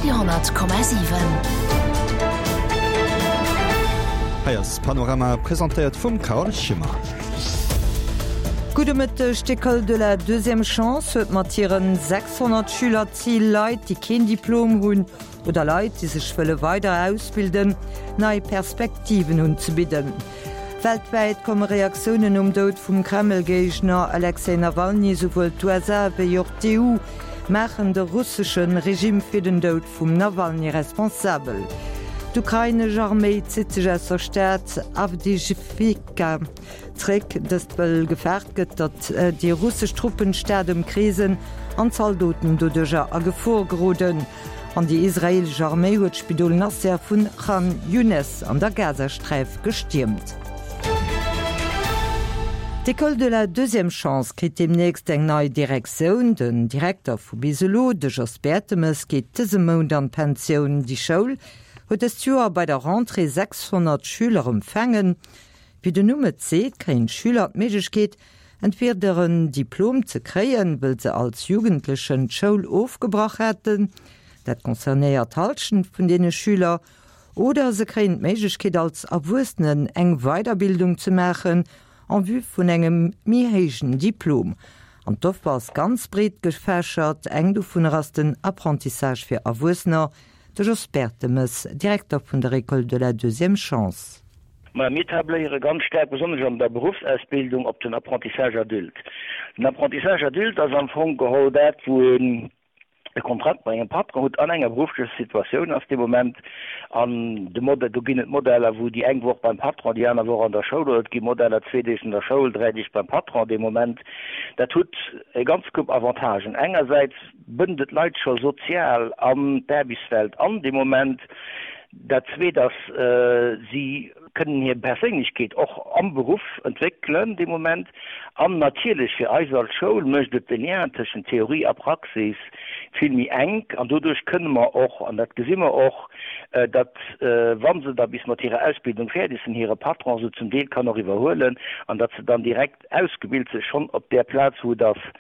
Radio,7. Hei ass Panorama, presentéiert vum Carole Schimmer. Gudde Mëtteg, D'École de la deuxième chance huet mat hiren 600 Schüler d'Zil, Leit, déi keen Diplom hunn oder Leit, déi sech wëlle weider ausbilden, nei Perspektiven unzebidden. Weltwäit komme Reaktiounen nom Doud vum Kreml-Géigner Alexej Nawalny. Souwuel d'USA wéi och d'EU maachen de russesche Regime fir den Doud vum Nawalny responsabel. D'ukrainesch Arméi zitt sech aus der Stad Awdijiwka zréck, dëst wëll gefaart gëtt, datt déi russesch Truppen d'Stad ëmkreesen an d'Zaldoten doduercher a Gefor geroden. An déi israeelesch Arméi huet d'Spidol Nasser vun Khan Younes an der Gazasträif gestiermt. D'École de la deuxième chance kritt deemnächst eng nei Direktioun. Den Direkter vu bis elo, de Jos Bertemes, geet dëse Mount an d'Pensioun. Déi Schoul huet dëst Joer bei der Rentrée 600 Schüler empfaangen. Wéi den Numm et seet, kréien d'Schüler d'Méiglechkeet, Entweder en Diplom ze kréien, wëll se als Jugendlechen d'Schoul ofgebrach haten, dat concernéiert d'Hallschent vun deene Schüler, oder se kréien d'Méiglechkeet als Erwuessenen eng Weiderbildung ze maachen en vue vun engem méi héijen Diplom. An d'Offer ass ganz breet gefächert, eng dovunner ass den Apprentissage fir Erwuessener. De Jos Bertemes, Direkter vun der École de la deuxième chance. Maja, mir tabléiere ganz staark, besonnesch an der Beruffsausbildung, op den Apprentissage adulte. Den Apprentissage adulte ass am Fong geholl dat, wou een e Kontrakt mat engem Patron hutt an enger berufflecher Situatioun ass dee Moment. An de Modell, do ginn et Modeller, wou déi eng Woch beim Patron, déi aner Woch an der Schoul, oder et gi Modeller, zwee Deeg an der Schoul, dräi Deeg beim Patron dee Moment. Dat hutt e ganz Koup Avantagen. Engersäits bënnt et d'Leit scho sozial an d'Aarbechtswelt an dee Moment. Dat Zweet ass, si kënnen hir Perséinlechkeet och am Beruff entwéckelen dee Moment. An natierlech fir eis als Schoul mécht et de Lien tëschent Theorie a Praxis vill méi enk. An doduerch kënne mer och, an dat gesi mer och, datt, wa se da bis mat hirer Ausbildung fäerdeg sinn, hire Patron se zum Deel kann och iwwerhuelen an datt se dann direkt ausgebilt si schonn op där Plaz, wou et ass.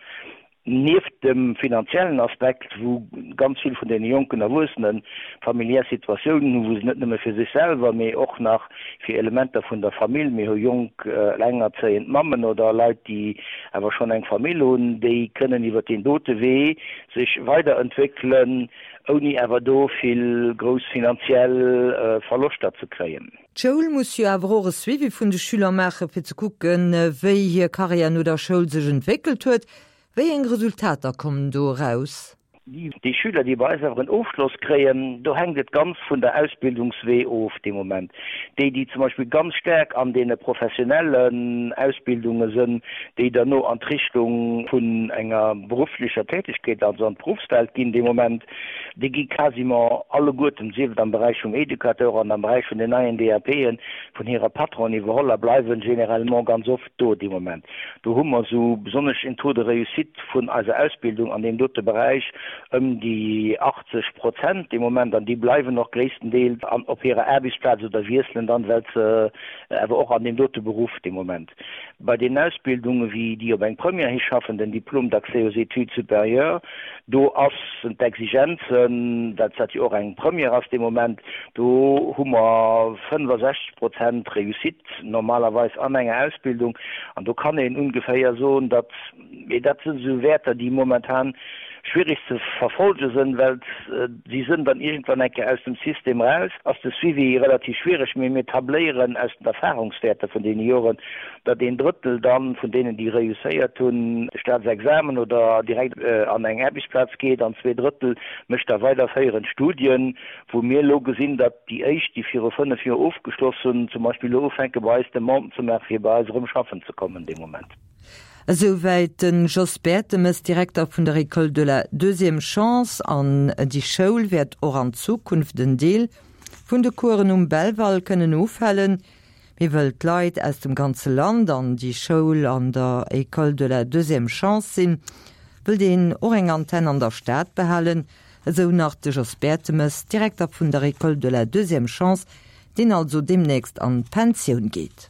Nieft dem finanziellen Aspekt, wou ganz vill vun deene jonken Erwuessene familiär Situatiounen hunn, wou se net nëmme fir sech selwer, mee och nach fir Elementer vun der Famill, mir hu jonk elengerzéiend Mammen oder Leit, déi awer schonn eng Famill hunn, déi kënnen iwwer deen dote Wee sech weiderentwéckelen, ouni awer do vill grouss finanziell Verloschter ze kréien. D'Schoul muss jo awer och e Suivi vun de Schüler maachen, fir ze kucken, wéi hir Karriär no der Schoul sech entwéckelt huet. Wéi eng Resultater kommen do eraus? Déi Schüler, déi bei eis awer en Ofschloss kréien, do hänkt et ganz vun der Ausbildungswee of dee Moment. Déi, déi zum Beispill ganz staark an deene professionellen Ausbildunge sënn, déi derno an d'Richtung vun enger berufflecher Tätigkeet, also an d'Beruffswelt ginn dee Moment, Déi gi quasiment alleguerten, sief et am Beräich vum Educateur an am Beräich vun den neien DAPen, vun hirer Patronen iwwerholl a bleiwen généralement ganz oft do dee Moment. Do hu mer esou besonnesch en Taux de réussite vun eiser Ausbildung an deem dote Beräich ëm déi 80 Prozent dee Moment an déi bleiwen och gréisstendeels an op hirer Aarbechtsplaz oder wiesselen dann, well se awer och an deem dote Beruff dee Moment bei deenen Ausbildungen, wéi déi op eng Première hischaffen, den Diplôme d'accès aux études supérieures, Do ass sinn d'Exigenzen, well dat jo och eng Première ass dee Moment, do hu mer 65 Prozent Réussite normalerweis an enger Ausbildung. An do kann een ungeféier soen, datt, mee dat sinn esou Wäerter, déi momentan schwierig ze verfolge sinn, well si sinn dann iergendwann eng Kéier aus dem System raus, ass de Suivi relativ schwierig. Mee mir tabléieren aus den Erfahrungswäerter vun deene Joren, datt een Drëttel dann vun deenen, déi reusséiert hunn, de Staatsexamen oder direkt an eng Aarbechtsplaz geet an 2 Drëttel mécht da weiderféierend Studien, wou mir elo gesinn, datt déi éischt, déi viru 5 Joer ofgeschloss hunn, zum Beispill elo ufänke bei eis Demanden ze maachen, fir bei eis erëm schaffen ze kommen dee Moment. Esouwäit de Jos Bertemes, Direkter vun der École de la deuxième chance. An déi Schoul wäert och an Zukunft en Deel vun de Coursen um Belval kënnen ofhalen. Mee wëll d'Leit aus dem ganze Land an déi Schoul an der École de la deuxième chance sinn, wëllt een och eng Antenn an der Stad behalen, esou nach de Jos Bertemes, Direkter vun der École de la deuxième chance, deen also deemnächst an d'Pensioun geet.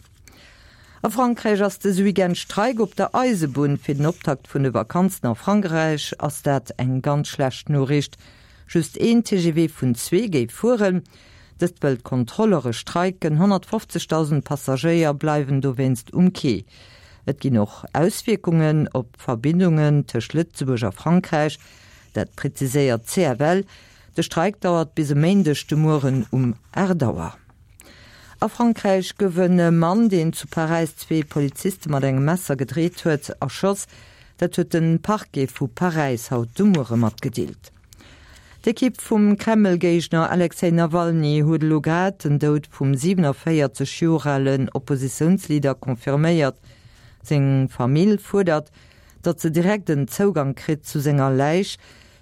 A Frankräich ass dëse Weekend Streik op der Eisebunn. Fir den Optakt vun de Vakanzen a Frankräich ass dat eng ganz schlecht Noriicht. Just een TGV vun zwee géif fueren. Dëst wëll d'Kontrolleure streiken. 150.000 Passagéier bleiwen dowéinst um Quai. Et ginn och Auswierkungen op d'Verbindungen tëscht Lëtzebuerg a Frankräich. Dat präziséiert d'CFL. De Streik dauert bis e Méindeg de Mueren um 8 Auer. A Frankräich gouf e Mann, deen zu Paräis zwee Poliziste mat engem Messer gedreet huet, erschoss. Dat huet de Parquet vu Paräis haut de Muere matgedeelt. D'Ekipp vum Kreml-Géigner Alexej Nawalny huet elo grad den Doud vum 47 Joer alen Oppositiounsleader confirméiert. Seng Famill fuerdert, datt se direkt en Zougang kritt zu senger Läich,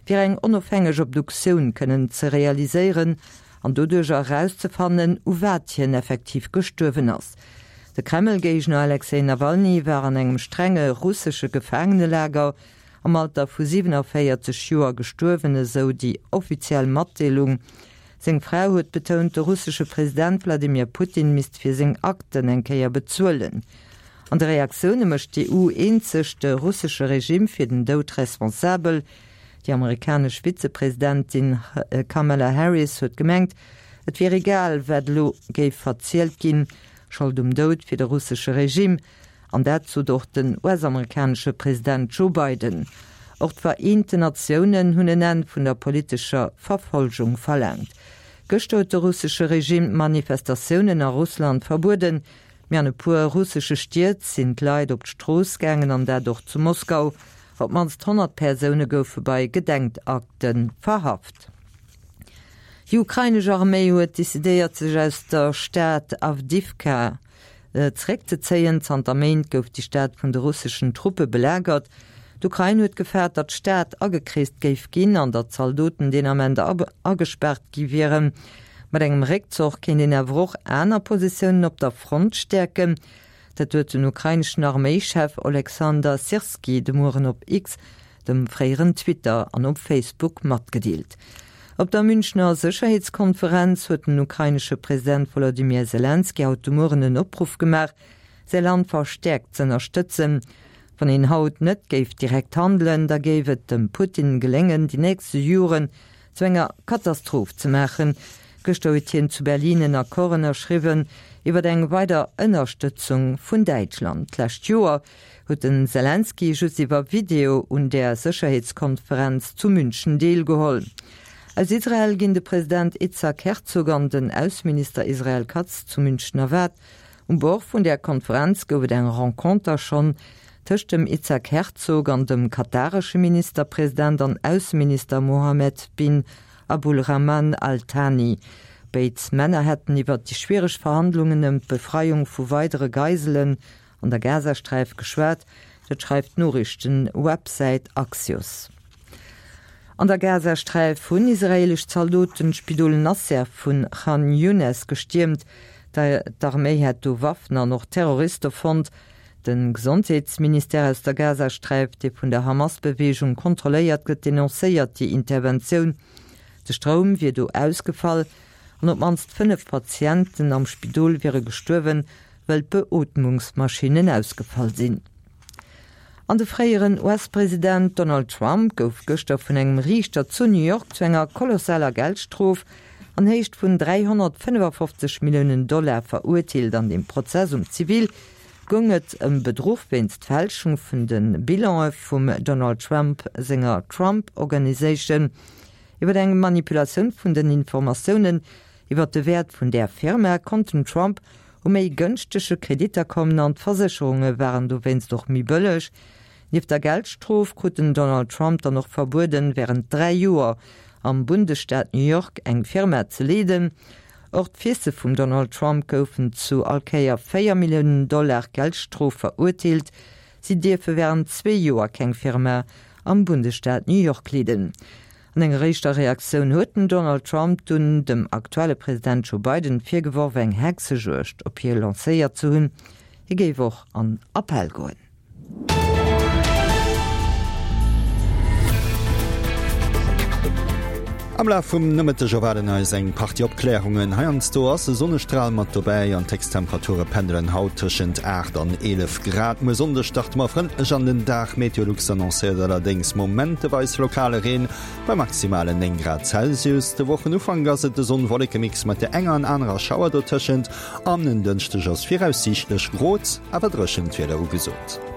fir eng onofhängeg Obduktioun kënnen ze realiséieren an doduercher erauszefannen, u wat hien effektiv gestuerwen ass. De Kreml-Géigner Alexej Nawalny war an engem strenge russesche Gefaangenelager am Alter vu 47 Joer gestuerwen, esou déi offiziell Matdeelung. Seng Fra huet betount, de russesche President Wladimir Putin misst fir seng Akten eng Kéier bezuelen. An de Reaktioune mécht d'EU eenzeg de russesche Regime fir den Doud responsabel. Déi amerikanesch Vizepresidentin Kamala Harris huet gemengt, et wier egal, wat elo géif verzielt ginn, Schold um Doud fir de russesche Regime. An dat sot och den US-amerikanesche President Joe Biden. Och d'Vereenten Natiounen hunn en Enn vun der politescher Verfolgung verlaangt. Gëschter huet de russesche Regime d'Manifestatiounen a Russland verbueden. Mee an e puer russesche Stied sinn d'Leit op d'Strooss gaangen, an dat och zu Moskau. Op d'mannst 100 Persoune goufe bei Gedenkakte verhaft. Déi ukrainesch Arméi huet decidéiert, sech aus der Stad Awdiwka zeréckzezéien. Zanter Méint gouf déi Stad vun de russeschen Truppe belagert. D'Ukrain huet gefaart, datt d'Stad agekreest géif ginn an datt Zaldoten deen Ament agespaart gi wieren. Mat engem Réckzoch kéint een awer och aner Positiounen op der Front stäerken. Dat huet den ukraineschen Arméischef Oleksander Syrskyi de Mueren op X, dem fréieren Twitter, an op Facebook matgedeelt. Op der Münchner Sécherheetskonferenz huet den ukrainesche President Wolodymyr Selenskyj haut de Mueren en Opruff gemaach, säi Land verstäerkt z'ënnerstëtzen. Wann een haut net géif direkt handelen, da géif et dem Putin geléngen, déi nächste Joren zu enger Katastroph ze maachen. Gëschter huet hien zu Berlin en Accord ënnerschriwwen iwwer eng weider Ënnerstëtzung vun Däitschland. D'lescht Joer huet den Selenskyj just iwwer Video un där Sécherheetskonferenz zu München deelgeholl. Aus Israel ginn de President Itzhak Herzog an den Ausseminister Israel Katz zu München erwaart. Um Bord vun där Konferenz gouf et eng Renconter schonn tëscht dem Itzhak Herzog an dem kataresche Ministerpresident an Ausseminister Mohammed bin Abulrahman Al Thani. Béid Männer hätten iwwert déi schwiereg Verhandlungen ëm d'Befreiung vu weidere Geiselen an der Gazasträif geschwat, dat schreift d'Noriichten-Websäit Axios. An der Gazasträif hunn israeelesch Zaldoten d'Spidol Nasser vun Khan Younes gestiermt. D'Arméi hätt do Waffen an och Terroriste fonnt. De Gesondheetsministère aus der Gazasträif, dee vun der Hamas-Beweegung kontrolléiert gëtt, denoncéiert déi Interventioun. De Stroum wier do ausgefall an op d'mannst 5 Patienten am Spidol wiere gestuerwen, wëll d'Beootmungsmaschinnen ausgefall sinn. An de fréieren US-President Donald Trump gouf gëschter vun engem Riichter zu New York zu enger kolossaler Geldstrof an Héicht vun 355 Milliounen Dollar verurteelt. An dem Prozess um Zivil goung et ëm Bedruch wéinst Fälschung vun de Bilane vum Donald Trump senger Trump Organization. Iwwer eng Manipulatioun vun den Informatiounen iwwer de Wäert vun där Firma konnt den Trump u méi gënschtege Kreditter kommen an d'Versécherunge waren dowéinst och méi bëlleg. Nieft der Geldstrof krut den Donald Trump dann och verbueden, wärend 3 Joer am Bundesstaat New York eng Firma ze leeden. Och d'Fisse vum Donald Trump goufen zu all Kéier 4 Milliounen Dollar Geldstrof verurteelt. Si dierfe wärend zwee Joer keng Firma am Bundesstaat New York leeden. An enger éischter Reaktioun huet den Donald Trump dunn dem aktuelle President Joe Biden virgeworf, eng Hexejuegd op hie lancéiert ze hunn. Hie géif och an Appell goen. Am Laf vum Nomëtteg erwaarden eis eng Partie Opklärungen. Heiansdo ass e Sonnestral mat dobäi an d'Héchsttemperature pendelen haut tëschent 8 an 11 Grad. Muer Sonndeg starte mer frëndlech an den Dag. Meteolux annoncéiert allerdéngs momenteweis lokale Reen bei maximalen 9 Grad Celsius. De Wochenufank ass et e Sonn-Wolleke-Mix mat der enger an anerer Schauer dotëschent an en Dënschdeg ass viraussiichtlech grot, awer dréchent Wieder ugesot.